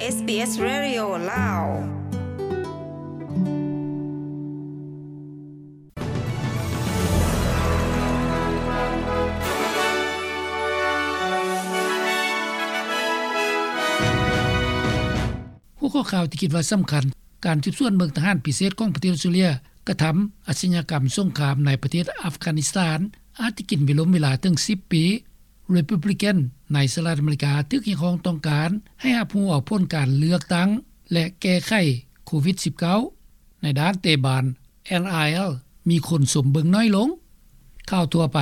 ເອສບີເອສ Radio ລາວ. ຫົວຂໍ້ຂ່າວທີ່ຄິດວ່າສຳຄັນ: ການສືບສວນເບິ່ງທະຫານພິເສດຂອງປະເທດອົດສະຕຣາເລຍກະທຳອາດຊະຍາກຳສົງຄາມໃນປະເທດອັຟການິສຖານ ອາດຈະກິນເວລົມເວລາເຖິງສິບປີ. ຣີພັບບລິກັນໃນສະຫະລັດອາເມລິກາຖືກຮຽກຮ້ອງຕ້ອງການໃຫ້ຮັບຮູ້ເອົາຜົນການເລືອກຕັ້ງ ແລະ ແກ້ໄຂໂຄວິດສິບເກົ້າ. ໃນດ້ານເຕະບານ ເອັນ ອາ ແອລ ມີຄົນຊົມເບິ່ງໜ້ອຍລົງ. ຂ່າວທົ່ວໄປ: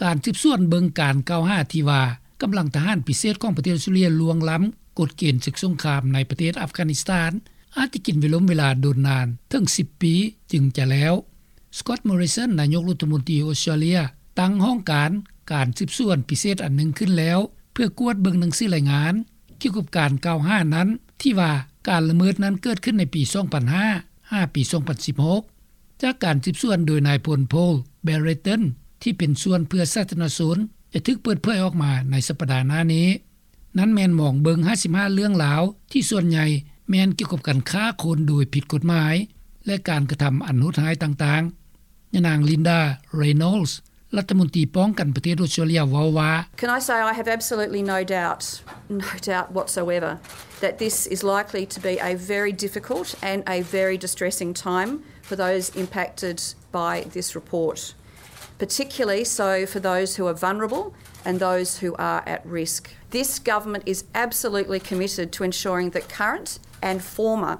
ການສືບສວນເບິ່ງການກ່າວຫາທີ່ວ່າກຳລັງທະຫານພິເສດຂອງປະເທດອົດສະຕຣາເລຍລ່ວງລ້ຳກົດເກນສຶກສົງຄາມໃນປະເທດອັຟການິສຖານ ອາດຈະກິນເວລົມເວລາດົນນານເຖິງສິບປີຈຶ່ງຈະແລ້ວ. ສະກອດ ມໍຣິສັນ ນາຍົກລັດຖະມົນຕີອົດສະຕຣາເລຍ ຕັ້ງຫ້ອງການການສືບສວນພິເສດອັນໜຶ່ງຂຶ້ນແລ້ວ ເພື່ອກວດເບິ່ງໜັງສືລາຍງານກ່ຽວກັບການກ່າວຫານັ້ນ ທີ່ວ່າການລະເມີດນັ້ນເກີດຂຶ້ນໃນປີສອງພັນຫ້າ ຫາປີສອງພັນສິບຫົກ. ຈາກການສືບສວນໂດຍນາຍພົນ ໂພລ ແບຣເຕັນ ທີ່ເປັນສ່ວນເພື່ອສາທາລະນະຊົນ ຈະຖືກເປີດເຜີຍອອກມາໃນສັບປະດາໜ້ານີ້. ນັ້ນແມ່ນມອງເບິ່ງຫ້າສິບຫ້າເລື່ອງລາວ ທີ່ສ່ວນໃຫຍ່ແມ່ນກ່ຽວກັບການຄ້າຄົນໂດຍຜິດກົດໝາຍ ແລະ ການກະທຳອັນໂຫດຮ້າຍຕ່າງໆ. ຍານາງ ລິນດາ ເຣໂນລສ໌ ລັດຖະມົນຕີປ້ອງກັນປະເທດອົດສະຕຣາເລຍ ເວົ້າວ່າ Can I say I have absolutely no doubt, no doubt whatsoever that this is likely to be a very difficult and a very distressing time for those impacted by this report, particularly so for those who are vulnerable and those who are at risk. This government is absolutely committed to ensuring that current and former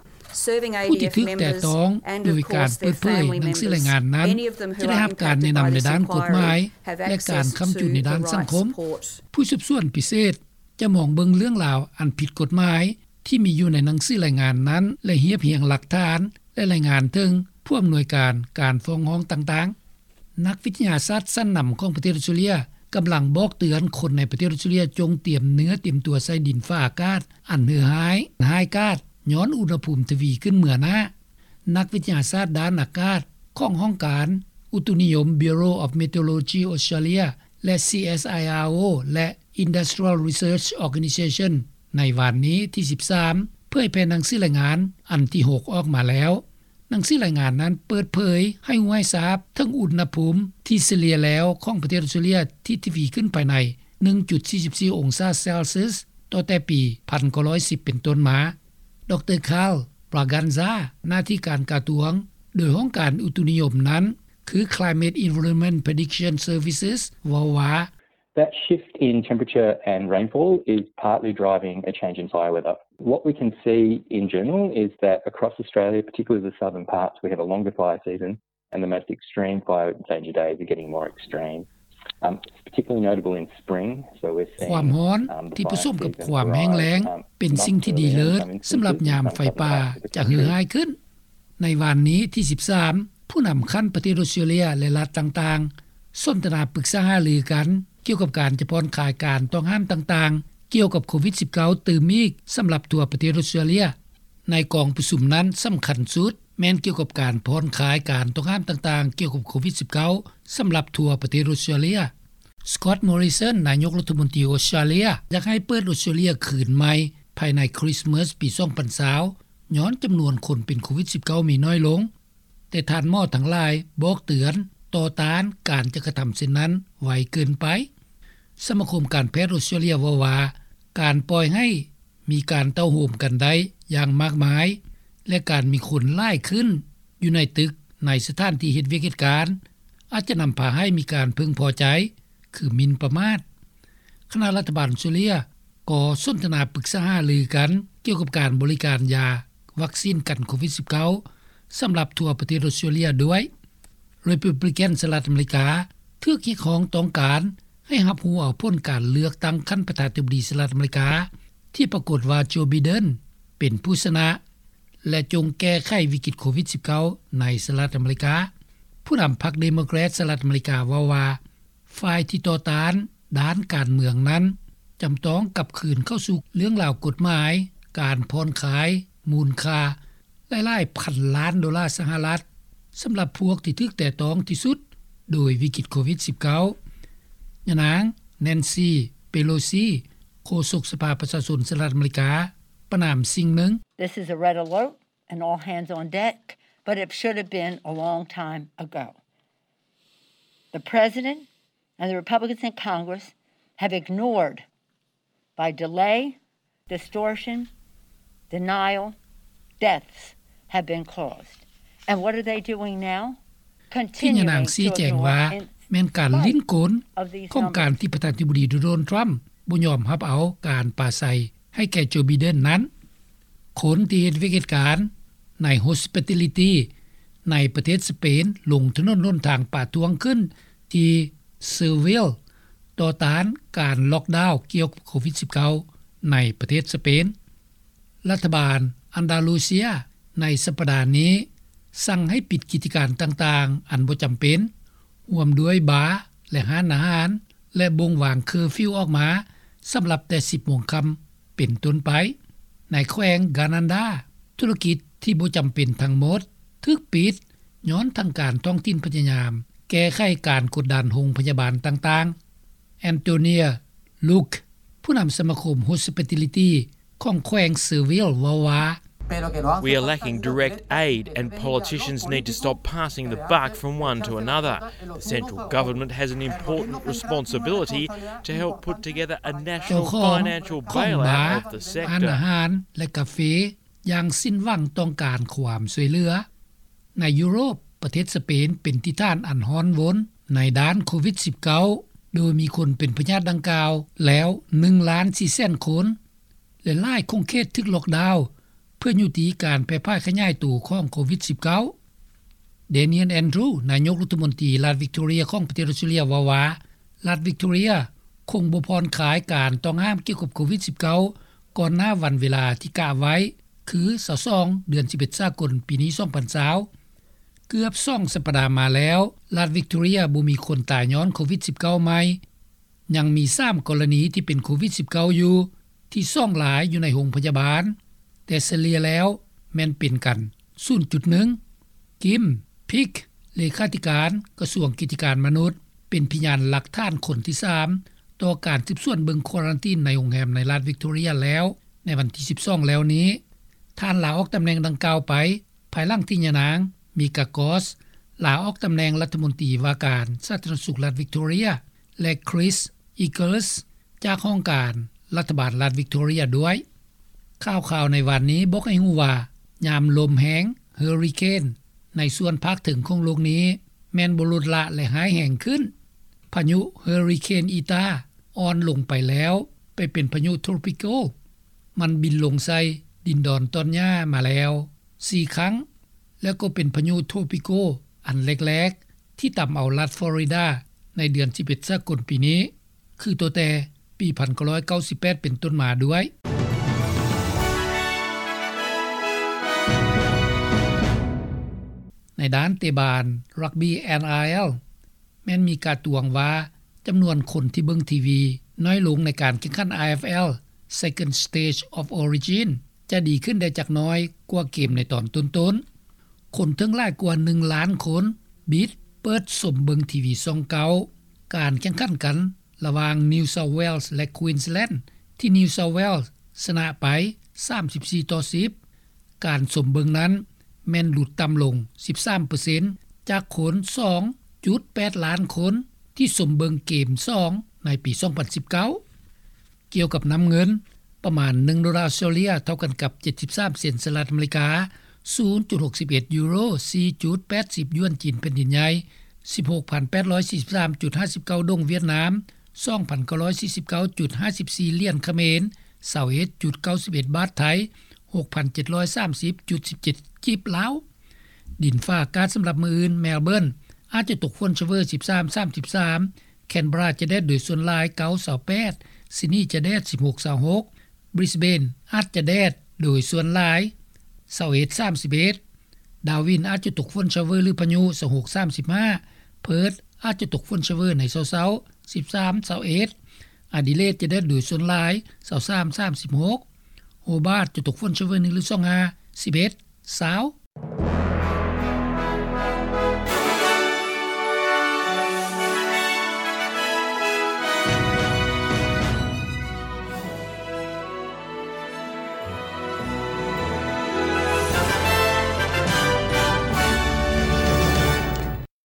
serving ຜູ້ທີ່ຖືກແຕະຕ້ອງໂດຍການເປີດເຜີຍໜັງສືລາຍງານນັ້ນ ຈະໄດ້ຮັບການແນະນຳໃນດ້ານກົດໝາຍ ແລະ ການຄ້ຳຈຸນໃນດ້ານສັງຄົມ. ຜູ້ສືບສວນພິເສດຈະມອງເບິ່ງເລື່ອງລາວອັນຜິດກົດໝາຍ ທີ່ມີຢູ່ໃນໜັງສືລາຍງານນັ້ນ ແລະ ຮຽບຮຽງຫຼັກຖານ ແລະ ລາຍງານເຖິງຜູ້ອຳນວຍການການຟ້ອງຮ້ອງຕ່າງໆ. ນັກວິທະຍາສາດຊັ້ນນຳຂອງປະເທດອົດສະຕຣາເລຍ ກຳລັງບອກເຕືອນຄົນໃນປະເທດອົດສະຕຣາເລຍ ຈົ່ງຕຽມເນື້ອຕຽມຕົວໃສ່ດິນຟ້າອາກາດອັນເຫື່ອຮ້າຍ, ຮ້າຍກາດ ຍ້ອນອຸນຫະພູມທະວີຂຶ້ນເໝືອໜ້າ. ນັກວິທະຍາສາດດ້ານອາກາດຂອງຫ້ອງການອຸຕຸນິຍົມ Bureau of Meteorology Australia ແລະ CSIRO ແລະ Industrial Research Organisation ໃນວານນີ້ທີສິບສາມ ເຜີຍແຜ່ໜັງສືລາຍງານອັນທີຫົກອອກມາແລ້ວ. ໜັງສືລາຍງານນັ້ນເປີດເຜີຍໃຫ້ຮູ້ໃຫ້ຊາບເຖິງອຸນຫະພູມທີ່ສະເລ່ຍແລ້ວຂອງປະເທດອົດສະຕຣາເລຍທີ່ທະວີຂຶ້ນພາຍໃນໜຶ່ງຈຸດສີ່ສິບສີ່ອົງສາເຊລຊຽສ ຕໍ່ແຕ່ປີພັນເກົ້າຮ້ອຍສິບເປັນຕົ້ນມາ. ດຣ ຄາລ ບຣາກັນຊາ ໜ້າທີ່ການກະຊວງ ໂດຍຫ້ອງການອຸຕຸນິຍົມນັ້ນ ຄື Climate Environment Prediction Services ເວົ້າວ່າ That shift in temperature and rainfall is partly driving a change in fire weather. What we can see in general is that across Australia, particularly the southern parts, we have a longer fire season and the most extreme fire danger days are getting more extreme. Um, it's particularly notable in spring, so we're seeing ຄວາມຮ້ອນທີ່ປະສົມກັບຄວາມແຫ້ງແລ້ງເປັນສິ່ງທີ່ດີເລີດສຳລັບຍາມໄຟປ່າຈະເຫື່ອຮ້າຍຂຶ້ນ. ໃນວານນີ້ທີສິບສາມ ຜູ້ນຳຂັ້ນປະເທດອົດສະຕຣາເລຍ ແລະ ລັດຕ່າງໆ ສົນທະນາປຶກສາຫາລືກັນກ່ຽວກັບການຈະຜ່ອນຄາຍການຕ້ອງຫ້າມຕ່າງໆ ກ່ຽວກັບໂຄວິດສິບເກົ້າຕື່ມອີກສຳລັບທົ່ວປະເທດອົດສະຕຣາເລຍ. ໃນກອງປະຊຸມນັ້ນສຳຄັນສຸດແມ່ນກ່ຽວກັບການຜ່ອນຄາຍການຕ້ອງຫ້າມຕ່າງໆ ກ່ຽວກັບໂຄວິດສິບເກົ້າ ສຳລັບທົ່ວປະເທດອົດສະຕຣາເລຍ. ສະກອດ ມໍຣິສັນ ນາຍົກລັດຖະມົນຕີອົດສະຕຣາເລຍ ຢາກໃຫ້ເປີດອົດສະຕຣາເລຍຄືນໃໝ່ພາຍໃນຄຣິສມາສປີສອງພັນຊາວ ຍ້ອນຈຳນວນຄົນເປັນໂຄວິດສິບເກົ້າມີໜ້ອຍລົງ. ແຕ່ທ່ານໝໍທັງຫຼາຍບອກເຕືອນຕໍ່ຕ້ານການຈະກະທຳເຊັ່ນນັ້ນໄວເກີນໄປ. ສະມາຄົມການແພດອົດສະຕຣາເລຍເວົ້າວ່າ ການປ່ອຍໃຫ້ມີການເຕົ້າໂຮມກັນໄດ້ຢ່າງມາກມາຍ ແລະ ການມີຄົນຫຼາຍຂຶ້ນຢູ່ໃນຕຶກ ໃນສະຖານທີ່ເຮັດວຽກເຮັດການ ອາດຈະນຳພາໃຫ້ມີການເພິ່ງພໍໃຈ ຄືໝິ່ນປະໝາດ. ຄະນະລັດຖະບານອົດສະຕຣາເລຍກໍສົນທະນາປຶກສາຫາລືກັນກ່ຽວກັບການບໍລິການຢາວັກຊີນກັນໂຄວິດສິບເກົ້າ ສຳລັບທົ່ວປະເທດອົດສະຕຣາເລຍດ້ວຍ. ຣີພັບບລິກັນສະຫະລັດອາເມລິກາຖືກຮຽກຮ້ອງຕ້ອງການໃຫ້ຮັບຮູ້ເອົາຜົນການເລືອກຕັ້ງຂັ້ນປະທານາທິບໍດີສະຫະລັດອາເມລິກາ ທີ່ປາກົດວ່າ ໂຈ ໄບເດັນ ເປັນຜູ້ຊະນະ ແລະ ຈົ່ງແກ້ໄຂວິກິດໂຄວິດສິບເກົ້າໃນສະຫະລັດອາເມລິກາ. ຜູ້ນຳພັກເດໂມແຄຣດສະຫະລັດອາເມລິກາເວົ້າວ່າ ຝ່າຍທີ່ຕໍ່ຕ້ານດ້ານການເມືອງນັ້ນ ຈຳຕ້ອງກັບຄືນເຂົ້າສູ່ເລື່ອງລາວກົດໝາຍ ການຜ່ອນຄາຍມູນຄ່າຫຼາຍໆພັນລ້ານໂດລາສະຫະລັດ ສຳລັບພວກທີ່ຖືກແຕະຕ້ອງທີ່ສຸດໂດຍວິກິດໂຄວິດສິບເກົ້າ. ຍານາງ ແນນຊີ ເປໂລຊີ ໂຄສົກສະພາປະຊາຊົນສະຫະລັດອາເມລິກາ ປະນາມສິ່ງໜຶ່ງ. This is a red alert and all hands on deck, but it should have been a long time ago. The president and the Republicans in Congress have ignored by delay, distortion, denial, deaths have been caused. And what are they doing now? ທີ່ຍານາງຊີ້ແຈງວ່າ ແມ່ນການຫຼິ້ນກົນຂອງການທີ່ປະທານາທິບໍດີໂດນັລ ທຣຳ ບໍ່ຍອມຮັບເອົາການປາໄສໃຫ້ແກ່ໂຈ ໄບເດັນນັ້ນ. ຄົນທີ່ເຮັດວຽກເຮັດການໃນ hospitality ໃນປະເທດສະເປນ ລົງຖະໜົນຫົນທາງປະທ້ວງຂຶ້ນທີ່ Seville ຕໍ່ຕ້ານການລັອກດາວກ່ຽວກັບໂຄວິດ-19 ໃນປະເທດສະເປນ. ລັດຖະບານອັນດາລູເຊຍໃນສັບປະດານີ້ສັ່ງໃຫ້ປິດກິດຈະການຕ່າງໆອັນບໍ່ຈຳເປັນ, ຮ່ວມດ້ວຍບາ ແລະ ຮ້ານອາຫານ ແລະ ບົ່ງວາງເຄີຟິວອອກມາສຳລັບແຕ່ສິບໂມງຄ່ຳເປັນຕົ້ນໄປ. ໃນແຂວງການານດາ ທຸລະກິດທີ່ບໍ່ຈຳເປັນທັງໝົດຖືກປິດ ຍ້ອນທາງການທ້ອງຖິ່ນພະຍາຍາມແກ້ໄຂການກົດດັນໂຮງພະຍາບານຕ່າງໆ. Antonia Luque ຜູ້ນຳສະມາຄົມ Hospitality ຂອງແຂວງ Seville ເວົ້າວ່າ We are lacking direct aid and politicians need to stop passing the buck from one to another. The central government has an important responsibility to help put together a national financial bailout of the sector. ເຈົ້າຂອງຂອງບາ ຮ້ານອາຫານ ແລະ ກາເຟ ຢ່າງສິ້ນຫວັງຕ້ອງການຄວາມຊ່ວຍເຫຼືອ. ໃນຢູໂຣບ, ປະເທດສະເປນເປັນທີ່ຖານອັນຮ້ອນວົນໃນດ້ານໂຄວິດ-19 ໂດຍມີຄົນເປັນພະຍາດດັ່ງກ່າວແລ້ວໜຶ່ງລ້ານສີ່ແສນຄົນ ແລະ ຫຼາຍຂົງເຂດຖືກລັອກດາວ ເພື່ອຍຸຕິການແຜ່ຜາຍຂະຫຍາຍໂຕຂອງໂຄວິດ-19. Daniel Andrews ນາຍົກລັດຖະມົນຕີລັດ Victoria ຂອງປະເທດອອສເຕຣເລັຍ ເວົ້າວ່າ ລັດ Victoria ຄົງບໍ່ຜ່ອນຄາຍການຕ້ອງຫ້າມກ່ຽວກັບໂຄວິດ-19 ກ່ອນໜ້າວັນເວລາທີ່ກະໄວ້ ຄື ຊາວສອງ ເດືອນສິບເອັດ ສາກົນ ປີນີ້ ສອງພັນຊາວ. ເກືອບສອງສັບປະດາມາແລ້ວ ລັດ Victoria ບໍ່ມີຄົນຕາຍຍ້ອນໂຄວິດ-19 ໃໝ່. ຍັງມີສາມກໍລະນີທີ່ເປັນໂຄວິດ-19 ຢູ່ ທີ່ສອງລາຍຢູ່ໃນໂຮງພະຍາບານ, ແຕ່ສະເລ່ຍແລ້ວແມ່ນເປັນກັນສູນຈຸດໜຶ່ງ. Kim Peek ເລຂາທິການກະຊວງກິດຈະການມະນຸດ ເປັນພະຍານຫຼັກຖານຄົນທີສາມຕໍ່ການສືບສວນເບິ່ງຄວາຣັນຕີນໃນໂຮງແຮມໃນລັດ Victoria ແລ້ວໃນວັນທີ ສິບສອງ ແລ້ວນີ້. ທ່ານລາອອກຕຳແໜ່ງດັ່ງກ່າວໄປ ພາຍຫຼັງທີ່ຍານາງ Mika Gaush ລາອອກຕຳແໜ່ງລັດຖະມົນຕີວ່າການສາທາລະນະສຸກລັດ Victoria ແລະ Chris Eagles ຈາກຫ້ອງການລັດຖະບານລັດ Victoria ດ້ວຍ. ຂ່າວຄາວໃນວານນີ້ບອກໃຫ້ຮູ້ວ່າ ຍາມລົມແຮງ Hurricane ໃນສ່ວນພາກເທິງຂອງໂລກນີ້ແມ່ນບໍ່ລົດລະ ແລະ ຮ້າຍແຮງຂຶ້ນ. ພາຍຸ Hurricane Eta ອ່ອນລົງໄປແລ້ວ ໄປເປັນພາຍຸ Tropical. ມັນບິນລົງໃສ່ດິນດອນຕອນຫຍ້າມາແລ້ວສີ່ຄັ້ງ ແລ້ວກໍເປັນພາຍຸ Tropical ອັນແລກໆ ທີ່ຕຳເອົາລັດ Florida ໃນເດືອນສິບເອັດ ສາກົນປີນີ້ ຄືຕັ້ງແຕ່ປີໜຶ່ງພັນເກົ້າຮ້ອຍເກົ້າສິບແປດເປັນຕົ້ນມາດ້ວຍ. ໃນດ້ານເຕະບານ Rugby NRL ແມ່ນມີການຕວງວ່າ ຈຳນວນຄົນທີ່ເບິ່ງທີວີນ້ອຍລົງໃນການແຂ່ງຂັນ IFL Second Stage of Origin ຈະດີຂຶ້ນໄດ້ຈັກໜ້ອຍກວ່າເກມໃນຕອນຕົ້ນໆ. ຄົນເຖິງຫຼາຍກວ່າໜຶ່ງລ້ານຄົນ ບິດເປີດຊົມເບິ່ງທີວີຊ່ອງເກົ້າ ການແຂ່ງຂັນກັນລະຫວ່າງ New South Wales ແລະ Queensland ທີ່ New South Wales ຊະນະໄປ ສາມສິບສີ່ຕໍ່ສິບ. ການຊົມເບິ່ງນັ້ນແມ່ນຫຼຸດຕ່ຳລົງ ສິບສາມເປີເຊັນ ຈາກຄົນ ສອງຈຸດແປດລ້ານຄົນ ທີ່ຊົມເບິ່ງເກມສອງໃນປີສອງພັນສິບເກົ້າ. ກ່ຽວກັບນ້ຳເງິນ, ປະມານໜຶ່ງໂດລາອອສເຕຣເລຍ ເທົ່າກັນກັບເຈັດສິບສາມເຊັນສະຫະລັດອາເມລິກາ, ສູນຈຸດຫົກສິບເອັດຢູໂຣ, ສີ່ຈຸດແປດສິບຢວນຈີນແຜ່ນດິນໃຫຍ່, ສິບຫົກພັນແປດຮ້ອຍສີ່ສິບສາມຈຸດຫ້າສິບເກົ້າດົງຫວຽດນາມ, ສອງພັນເກົ້າຮ້ອຍສີ່ສິບເກົ້າຈຸດຫ້າສິບສີ່ຫຼຽນຂະເໝນ, ຊາວເອັດຈຸດເກົ້າສິບເອັດບາດໄທ, ຫົກພັນເຈັດຮ້ອຍສາມສິບຈຸດສິບເຈັດກີບລາວ. ດິນຟ້າອາກາດສຳລັບມື້ອື່ນ, ແມລເບີນ ອາດຈະຕົກຝົນຊະເວີ ສິບສາມ ສາມສິບສາມ, ແຄນເບີຣາຈະແດດໂດຍສ່ວນຫຼາຍ ເກົ້າ ຊາວແປດ, ຊິດນີຈະແດດ ສິບຫົກ ຊາວຫົກ, ບຣິສເບນອາດຈະແດດໂດຍສ່ວນຫຼາຍ ຊາວເອັດ ສາມສິບເອັດ, ດາວິນອາດຈະຕົກຝົນຊະເວີ ຫຼື ພາຍຸ ຊາວຫົກ ສາມສິບຫ້າ, ເພີດອາດຈະຕົກຝົນຊະເວີໃນເຊົ້າໆ ສິບສາມ ຊາວເອັດ, ອາດີເລດຈະແດດໂດຍສ່ວນຫຼາຍ ຊາວສາມ ສາມສິບຫົກ, ໂຮບາດຈະຕົກຝົນຊະເວີ ໜຶ່ງ ຫຼື ສອງ ຫ້າ ສິບເອັດ ຊາວ,